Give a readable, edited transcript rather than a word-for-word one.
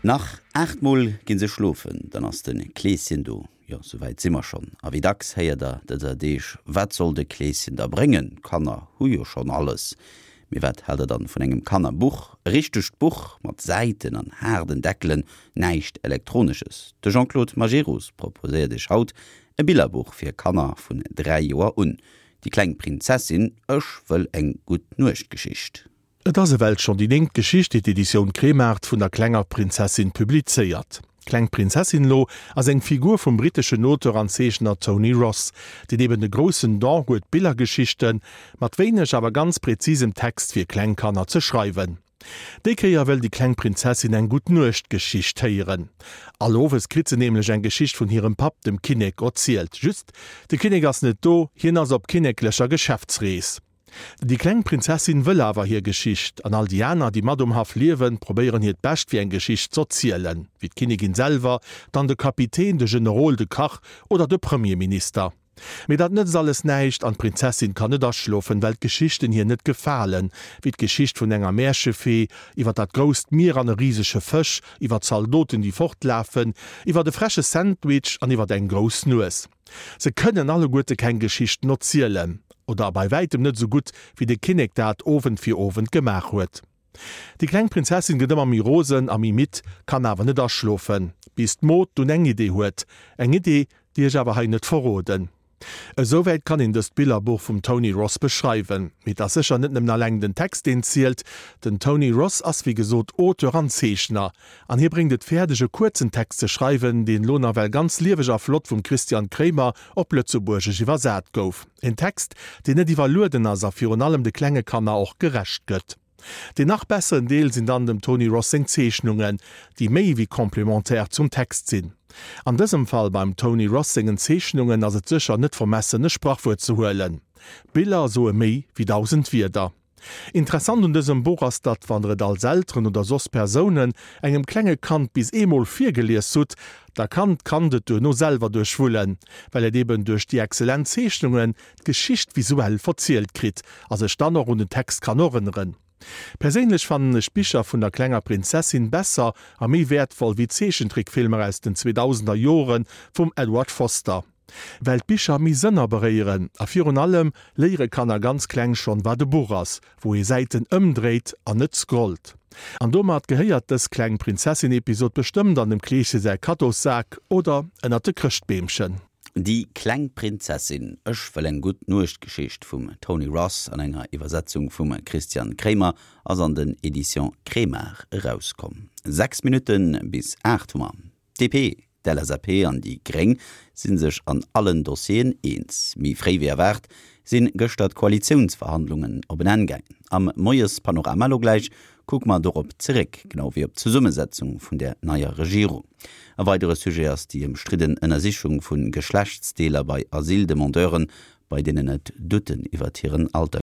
Nach 8 mol ginn se schlofen, dann ass de Kleeschen do. Jo, souwäit si mer schonn. A wéi dacks héiert der dëser Deeg, Wat soll de Kleeschen da bréngen? D'Kanner hu jo schonn alles. Mee wat haalt der dann vun engem Kannerbuch? E richtegt Buch mat Säiten an haarden Deckelen, näischt Elektronesches. De Jean-Claude Majerus proposéiert iech haut e Billerbuch fir Kanner vun 3 Joer un. Déi kleng Prinzessin, Ech wëll eng Gutt-Nuecht-Geschicht. Et ass ewell schonn déi néngt Geschicht, déi d'Editioun Kremart vun der klenger Prinzessin publizéiert. D'Kleng Prinzessin elo ass eng Figur vum britteschen Auteur an Zeechner Tony Ross, deen eben de groussen Don huet Billergeschichte mat wéineg awer ganz präzisem Text fir kleng Kanner ze schreiwen. Déi Kéier wëll déi kleng Prinzessin eng Gutt-Nuecht-Geschicht héieren. All Owes kritt se nämlech eng Geschicht vun hirem Papp, dem Kinnek, erzielt. Just, de Kinnek ass net do, hien ass op kinneklecher Geschäftsrees. Déi kleng Prinzessin wëll awer hir Geschicht, an all déi aner, déi mat um Haff liewen, probéieren hiert Bescht fir eng Geschicht z'erzielen, wéi d'Kinnigin selwer, dann de Kapitän, de Generol, de Kach oder de Premierminister. Mee dat nëtzt alles näischt an d'Prinzessin kann net aschlofen, well d'Geschichten hir net gefalen, wéi d'Geschicht vun enger Märchefee, iwwer dat grousst Mier an e risege Fësch, iwwer Zaldoten, déi fortlafen, iwwer e freche Sandwich an iwwer eng grouss Nues. Se kënnen alleguerte keng Geschichten erzielen, oder bei wäitem net esou gutt, wéi de Kinnek dat Owend fir Owend gemaach huet. Déi kleng Prinzessin gëtt ëmmer méi rosen a méi midd, kann awer net aschlofen, bis d'Mod dunn eng Idee huet. Eng Idee, déi ech awer hei net verroden. Esouwäit kann een dëst Billerbuch vum Tony Ross beschreiwen. Mee et ass sécher net nëmmen alleng den Text, deen zielt. Den Tony Ross ass wéi gesot Auteur an Zeechner. An hie bréngt et fäerdeg e kuerzen Text ze schreiwen, deen elo nawell ganz lieweg a flott vum Christian Kraemer op Lëtzebuergesch iwwersat gouf. En Text, deen net iwwerlueden ass a virun allem de klenge Kanner och gerecht gëtt. Deen nach besseren Deel sinn dann dem Tony Ross seng Zeechnungen, déi méi wéi complémentaire zum Text sinn. An dësem Fall beim Tony Ross sengen Zeechnungen ass et sécher net vermessen e Sprachwuert ze huelen, Biller soe méi wéi 1000 Wierder. Interessant un dësem Buch ass, datt wann der et als Elteren oder soss Persounen engem klenge Kand bis eemol virgelies hutt, da kann d'Kand et duerno selwer duerchwullen, well et eben duerch déi excellent Zeechnungen d'Geschicht visuell verzielt kritt a sech dann och un den Text kann erënneren. Perséinlech fannen ech d'Bicher vun der klenger Prinzessin besser a méi wäertvoll wéi d'Zeechentrickfilmer aus den 2000er Jore vum Edward Foster. Well d'Bicher méi Sënner beréieren a virun allem léiere Kanner ganz kleng schonn wat e Buch ass, wou ee Säiten ëmdréit an net scrollt. An domat gehéiert dës kleng Prinzessin-Episod bestëmmt an dem Kleesche säi Kaddossak oder ënnert de Chrëschtbeemchen. Déi kleng Prinzessin, Ech wëll eng gutt Nuechtgeschicht vum Tony Ross an enger Iwwersetzung vum Christian Kraemer ass an den Editions Kremart erauskomm. 6 Minutte bis 8 hu mer. D'DP, d'LSAP an déi Gréng si sech an allen Dossieren eens. Méi fréi wéi erwaart si gëschter d'Koalitiounsverhandlungen op en Enn gaangen. Am Moiespanorama elo gläich kucke mer dorop zeréck, genau wéi op d'Zesummesetzung vun der neier Regierung. E weidere Sujet ass déi ëmstridden Ënnersichung vu Geschlechtsdeeler bei Asyldemandeuren, bei deenen et Doutten iwwert hiren Alter.